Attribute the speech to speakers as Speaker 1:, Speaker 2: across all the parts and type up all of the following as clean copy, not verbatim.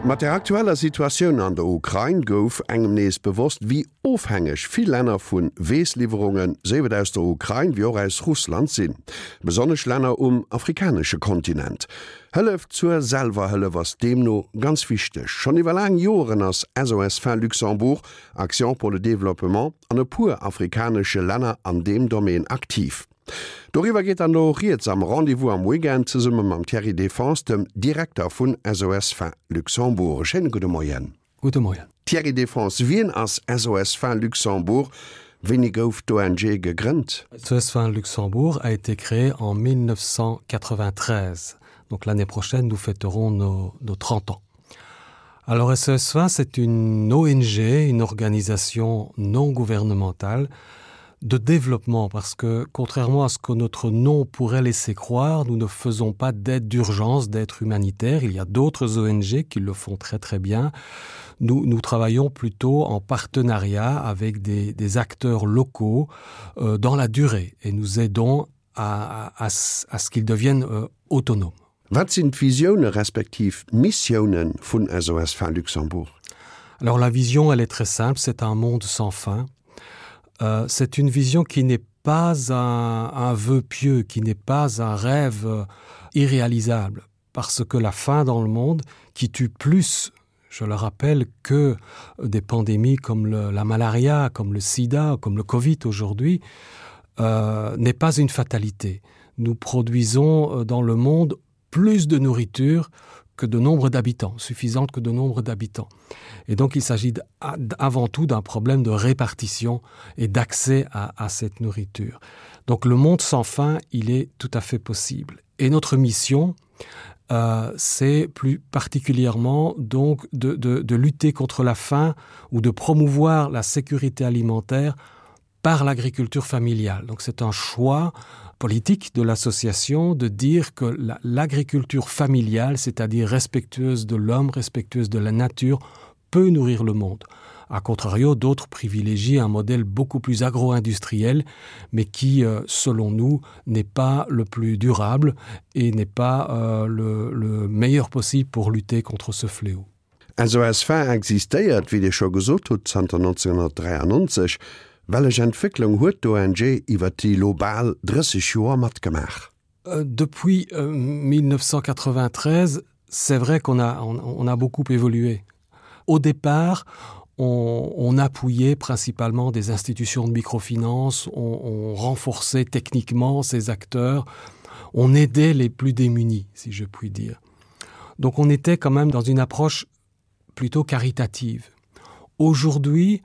Speaker 1: Mat der aktueller Situatioun an der Ukrain gouf engem nees bewosst, wéi ofhängeg vill Länner vu Weessliwwerungen, séif et aus der Ukrain wéi och aus Russland sinn. Besonnesch Länner um afrikanesche Kontinent. Hëllef zur Selwerhëllef ass deemno ganz wichteg. Schonn iwwer laang Joren ass SOS Faim Luxembourg, Action pour le développement an e puer afrikanesche Länner an deem Domaine aktiv. Doriwwer geet dann elo rieds am Rendez-vous am Weekend zesumme mam Thierry Defense, dem Direkter vun SOS Faim Luxembourg. E schéine gudde Moien.
Speaker 2: Gudde Moien.
Speaker 1: Thierry Defense, wien ass SOS Faim Luxembourg? Wéini gouf d'ONG gegrënnt?
Speaker 2: SOS Faim Luxembourg a été créé en 1993. Donc l'année prochaine, nous fêterons nos, nos 30 ans. Alors SOS Faim, c'est une ONG, une organisation non gouvernementale de développement parce que contrairement à ce que notre nom pourrait laisser croire, nous ne faisons pas d'aide d'urgence, d'être humanitaire. Il y a d'autres ONG qui le font très très bien. Nous, nous travaillons plutôt en partenariat avec des, des acteurs locaux euh, dans la durée et nous aidons à, à, à, à ce qu'ils deviennent euh, autonomes.
Speaker 1: Wat sinn d'Visioune respektiv d'Missioune vun SOS Faim Luxembourg?
Speaker 2: Alors la vision, elle est très simple, c'est un monde sans faim. Euh, c'est une vision qui n'est pas un, un vœu pieux, qui n'est pas un rêve euh, irréalisable, parce que la faim dans le monde qui tue plus, je le rappelle, que des pandémies comme le, la malaria, comme le sida, comme le Covid aujourd'hui, euh, n'est pas une fatalité. Nous produisons euh, dans le monde plus de nourriture que de nombre d'habitants, suffisante que de nombre d'habitants. Et donc il s'agit avant tout d'un problème de répartition et d'accès à, à cette nourriture. Donc le monde sans faim, il est tout à fait possible. Et notre mission, euh, c'est plus particulièrement donc de, de, de lutter contre la faim ou de promouvoir la sécurité alimentaire par l'agriculture familiale. Donc c'est un choix politique de l'association de dire que l'agriculture familiale, c'est-à-dire respectueuse de l'homme, respectueuse de la nature, peut nourrir le monde. A contrario, d'autres privilégient un modèle beaucoup plus agro-industriel, mais qui, euh, selon nous, n'est pas le plus durable et n'est pas euh, le, le meilleur possible pour lutter contre ce fléau.
Speaker 1: SOS Faim existéiert, wéi Dir scho gesot hutt, zanter 1993. Wellech Entwécklung huet d'ONG iwwer déi lo bal 30 Joer matgemaach?
Speaker 2: Euh, depuis 1993, euh, c'est vrai qu'on a, on, on a beaucoup évolué. Au départ, on, on appuyait principalement des institutions de microfinance, on, on renforçait techniquement ces acteurs, on aidait les plus démunis, si je puis dire. Donc on était quand même dans une approche plutôt caritative. Aujourd'hui,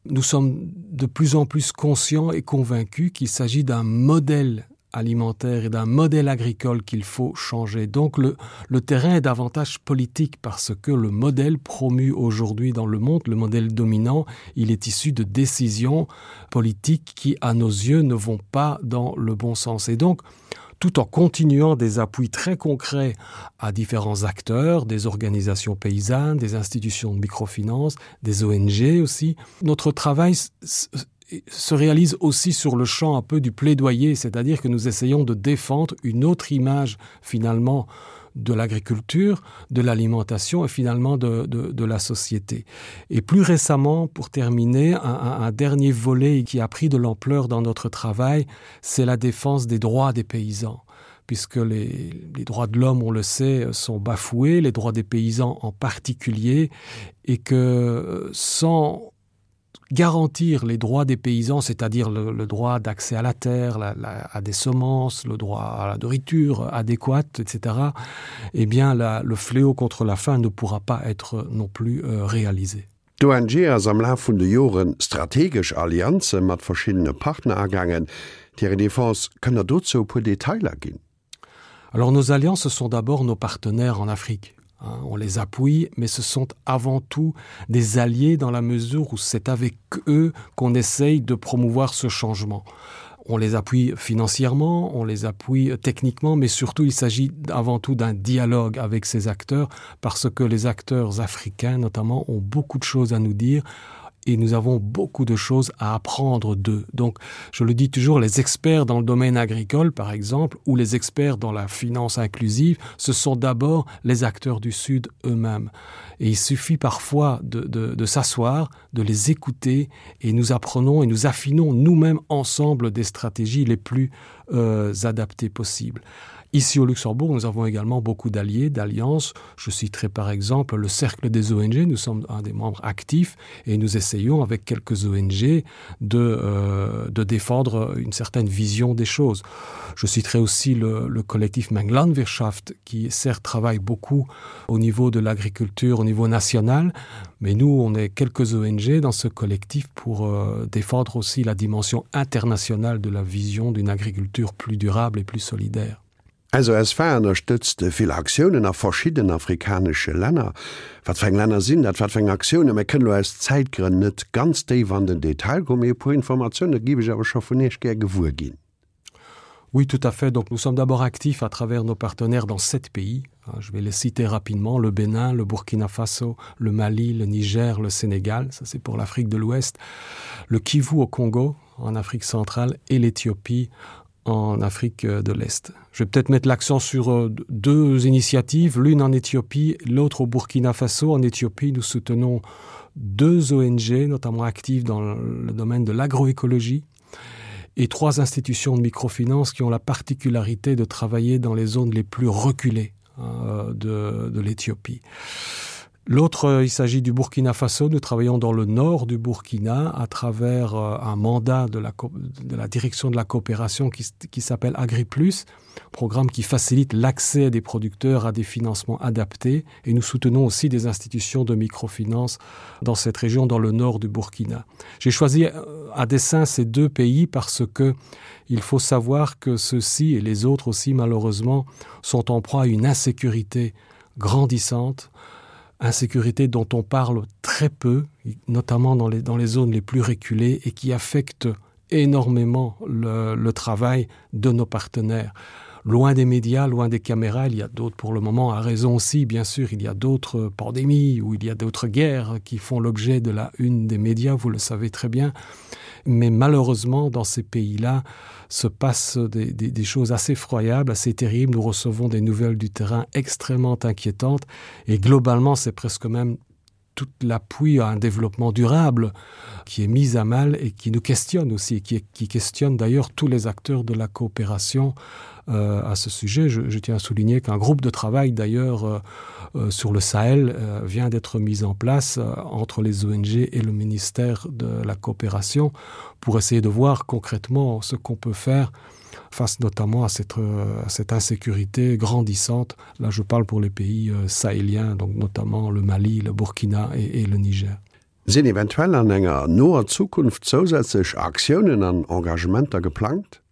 Speaker 2: nous sommes de plus en plus conscients et convaincus qu'il s'agit d'un modèle alimentaire et d'un modèle agricole qu'il faut changer. Donc le, le terrain est davantage politique parce que le modèle promu aujourd'hui dans le monde, le modèle dominant, il est issu de décisions politiques qui, à nos yeux, ne vont pas dans le bon sens. Et donc, tout en continuant des appuis très concrets à différents acteurs, des organisations paysannes, des institutions de microfinance, des ONG aussi. Notre travail se réalise aussi sur le champ un peu du plaidoyer, c'est-à-dire que nous essayons de défendre une autre image finalement de l'agriculture, de l'alimentation et finalement de, de, de la société. Et plus récemment, pour terminer, un, un, un dernier volet qui a pris de l'ampleur dans notre travail, c'est la défense des droits des paysans puisque les, les droits de l'homme, on le sait, sont bafoués, les droits des paysans en particulier, et que sans garantir les droits des paysans, c'est-à-dire le, le droit d'accès à la terre, la, la, à des semences, le droit à la nourriture adéquate, etc., eh bien la, le fléau contre la faim ne pourra pas être non plus euh, réalisé.
Speaker 1: D'ONG ass am Laf vun de Joren strategesch Allianze mat verschiddene Partner agaangen. Thierry Defense, kënnt Der dozou e puer Detailer ginn?
Speaker 2: Alors nos alliances ce sont d'abord nos partenaires en Afrique. Hein, on les appuie, mais ce sont avant tout des alliés dans la mesure où c'est avec eux qu'on essaye de promouvoir ce changement. On les appuie financièrement, on les appuie techniquement, mais surtout il s'agit avant tout d'un dialogue avec ces acteurs parce que les acteurs africains notamment ont beaucoup de choses à nous dire. Et nous avons beaucoup de choses à apprendre d'eux. Donc, je le dis toujours, les experts dans le domaine agricole, par exemple, ou les experts dans la finance inclusive, ce sont d'abord les acteurs du Sud eux-mêmes. Et il suffit parfois de, de, de s'asseoir, de les écouter, et nous apprenons et nous affinons nous-mêmes ensemble des stratégies les plus euh, adaptées possibles. Ici au Luxembourg, nous avons également beaucoup d'alliés, d'alliances. Je citerai par exemple le Cercle des ONG. Nous sommes un des membres actifs et nous essayons avec quelques ONG de, euh, de défendre une certaine vision des choses. Je citerai aussi le, le collectif Menglandwirtschaft qui certes travaille beaucoup au niveau de l'agriculture, au niveau national, mais nous, on est quelques ONG dans ce collectif pour euh, défendre aussi la dimension internationale de la vision d'une agriculture plus durable et plus solidaire.
Speaker 1: SOSFA ënnerstëtzt vill Aktiounen a verschidden afrikanesche Länner. Wat fir eng Länner sinn dat? Wat fir eng Aktiounen? Mir kënnen elo aus Zäitgrënn net ganz déif an den Detail goen, mee e puer Informatioune géif ech awer scho vun Iech gär gewuer ginn.
Speaker 2: Oui, tout à fait. Donc nous sommes d'abord actifs à travers nos partenaires dans sept pays. Je vais les citer rapidement le Bénin, le Burkina Faso, le Mali, le Niger, le Sénégal, ça c'est pour l'Afrique de l'Ouest, le Kivu au Congo en Afrique centrale et l'Éthiopie en Afrique euh, de l'Est. Je vais peut-être mettre l'accent sur euh, deux initiatives, l'une en Éthiopie, l'autre au Burkina Faso. En Éthiopie, nous soutenons deux ONG, notamment actives dans le domaine de l'agroécologie, et trois institutions de microfinance qui ont la particularité de travailler dans les zones les plus reculées euh, de, de l'Éthiopie. L'autre, euh, il s'agit du Burkina Faso. Nous travaillons dans le nord du Burkina à travers euh, un mandat de la, de la direction de la coopération qui, qui s'appelle AgriPlus, programme qui facilite l'accès des producteurs à des financements adaptés. Et nous soutenons aussi des institutions de microfinance dans cette région, dans le nord du Burkina. J'ai choisi euh, à dessein ces deux pays parce que il faut savoir que ceux-ci et les autres aussi, malheureusement, sont en proie à une insécurité grandissante insécurité dont on parle très peu, notamment dans les, dans les zones les plus reculées et qui affecte énormément le, le travail de nos partenaires. Loin des médias, loin des caméras, il y a d'autres pour le moment à raison aussi, bien sûr, il y a d'autres pandémies ou il y a d'autres guerres qui font l'objet de la une des médias, vous le savez très bien. Mais malheureusement, dans ces pays-là, se passent des, des, des choses assez effroyables, assez terribles. Nous recevons des nouvelles du terrain extrêmement inquiétantes et globalement, c'est presque même tout l'appui à un développement durable qui est mis à mal et qui nous questionne aussi et qui, qui questionne d'ailleurs tous les acteurs de la coopération euh, à ce sujet. Je, je tiens à souligner qu'un groupe de travail d'ailleurs euh, euh, sur le Sahel euh, vient d'être mis en place euh, entre les ONG et le ministère de la coopération pour essayer de voir concrètement ce qu'on peut faire face notamment à cette, euh, à cette insécurité grandissante. Là je parle pour les pays euh, sahéliens, donc notamment le Mali, le Burkina et, et le Niger.
Speaker 1: Sinn eventuell an enger noer Zukunft zousätzlech Aktiounen an Engagementer geplangt?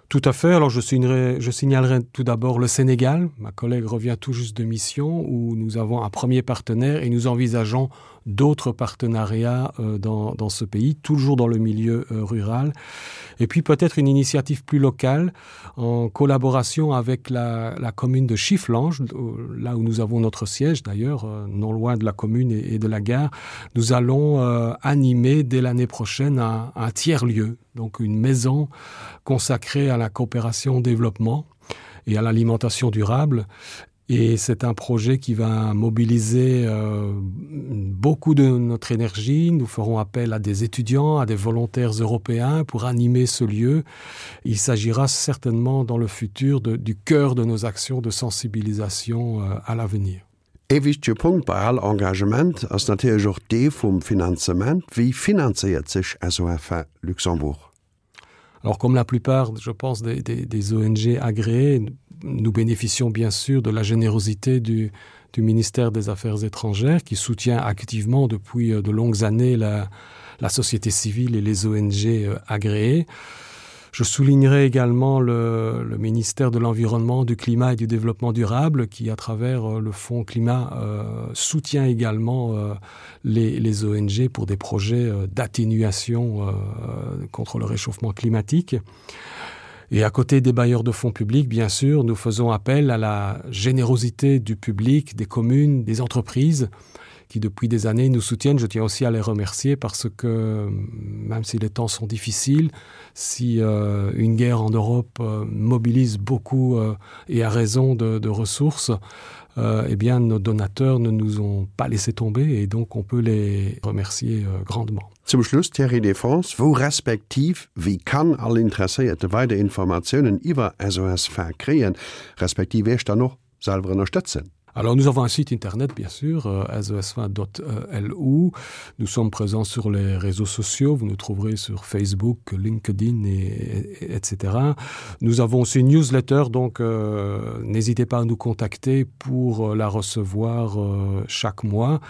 Speaker 2: Tout à fait. Alors je signerai, je signalerai tout d'abord le Sénégal. Ma collègue revient tout juste de mission où nous avons un premier partenaire et nous envisageons d'autres partenariats euh, dans, dans ce pays, toujours dans le milieu euh, rural. Et puis peut-être une initiative plus locale en collaboration avec la, la commune de Chifflange, euh, là où nous avons notre siège d'ailleurs, non loin de la commune et, et de la gare. Nous allons animer dès l'année prochaine un, un tiers-lieu, donc une maison consacrée à la coopération au développement et à l'alimentation durable. Et c'est un projet qui va mobiliser euh, beaucoup de notre énergie. Nous ferons appel à des étudiants, à des volontaires européens pour animer ce lieu. Il s'agira certainement dans le futur de, du cœur de nos actions de sensibilisation euh, à l'avenir.
Speaker 1: Ee wichtege Punkt bei all Engagement ass natierlech och dee vum Finanzement. Wéi finanzéiert sech SOFA Luxembourg?
Speaker 2: Alors comme la plupart, je pense, des, des, des ONG agréées, nous bénéficions bien sûr de la générosité du, du ministère des Affaires étrangères qui soutient activement depuis euh, de longues années la, la société civile et les ONG euh, agréées. Je soulignerai également le, le ministère de l'Environnement, du Climat et du Développement durable qui, à travers euh, le Fonds climat, euh, soutient également euh, les, les ONG pour des projets euh, d'atténuation euh, contre le réchauffement climatique. Et à côté des bailleurs de fonds publics, bien sûr, nous faisons appel à la générosité du public, des communes, des entreprises, qui depuis des années nous soutiennent. Je tiens aussi à les remercier parce que même si les temps sont difficiles, si euh, une guerre en Europe euh, mobilise beaucoup euh, et a raison de, de ressources, euh, eh bien nos donateurs ne nous ont pas laissé tomber et donc on peut les remercier euh, grandement.
Speaker 1: Zum Schluss Thierry Défense, wou respektiv wéi kann all Interesséierte weider Informatiounen iwwer SOS Faim kréien, respektiv Iech dann och selwer ënnerstëtzen?
Speaker 2: Alors nous avons un site internet bien sûr euh, sosfaim.lu. Nous sommes présents sur les réseaux sociaux, vous nous trouverez sur Facebook, LinkedIn et, et, etc. Nous avons aussi une newsletter, donc euh, n'hésitez pas à nous contacter pour euh, la recevoir euh, chaque mois.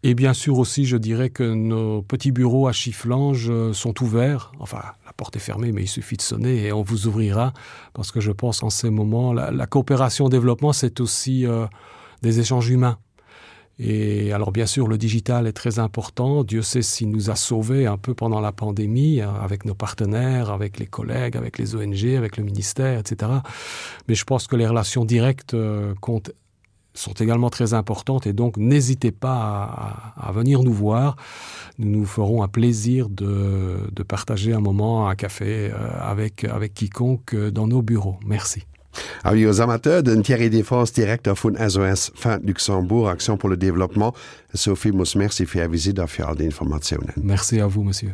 Speaker 2: Et bien sûr aussi, je dirais que nos petits bureaux à Chifflange euh, sont ouverts. Enfin, la porte est fermée, mais il suffit de sonner et on vous ouvrira parce que je pense en ces moments, la, la coopération au développement, c'est aussi euh, des échanges humains. Et alors bien sûr, le digital est très important. Dieu sait s'il nous a sauvés un peu pendant la pandémie, avec nos partenaires, avec les collègues, avec les ONG, avec le ministère, etc. Mais je pense que les relations directes euh, comptent sont également très importantes et donc n'hésitez pas à, à venir nous voir. Nous nous ferons un plaisir de, de partager un moment un café euh, avec, avec quiconque euh, dans nos bureaux. Merci.
Speaker 1: Avis aux amateurs, den Thierry Défense, Direkter vun SOS Faim Luxembourg, Action pour le développement. Ech soe villmools Merci fir Är Visitt a fir all déi Informatiounen.
Speaker 2: Merci à vous, Monsieur.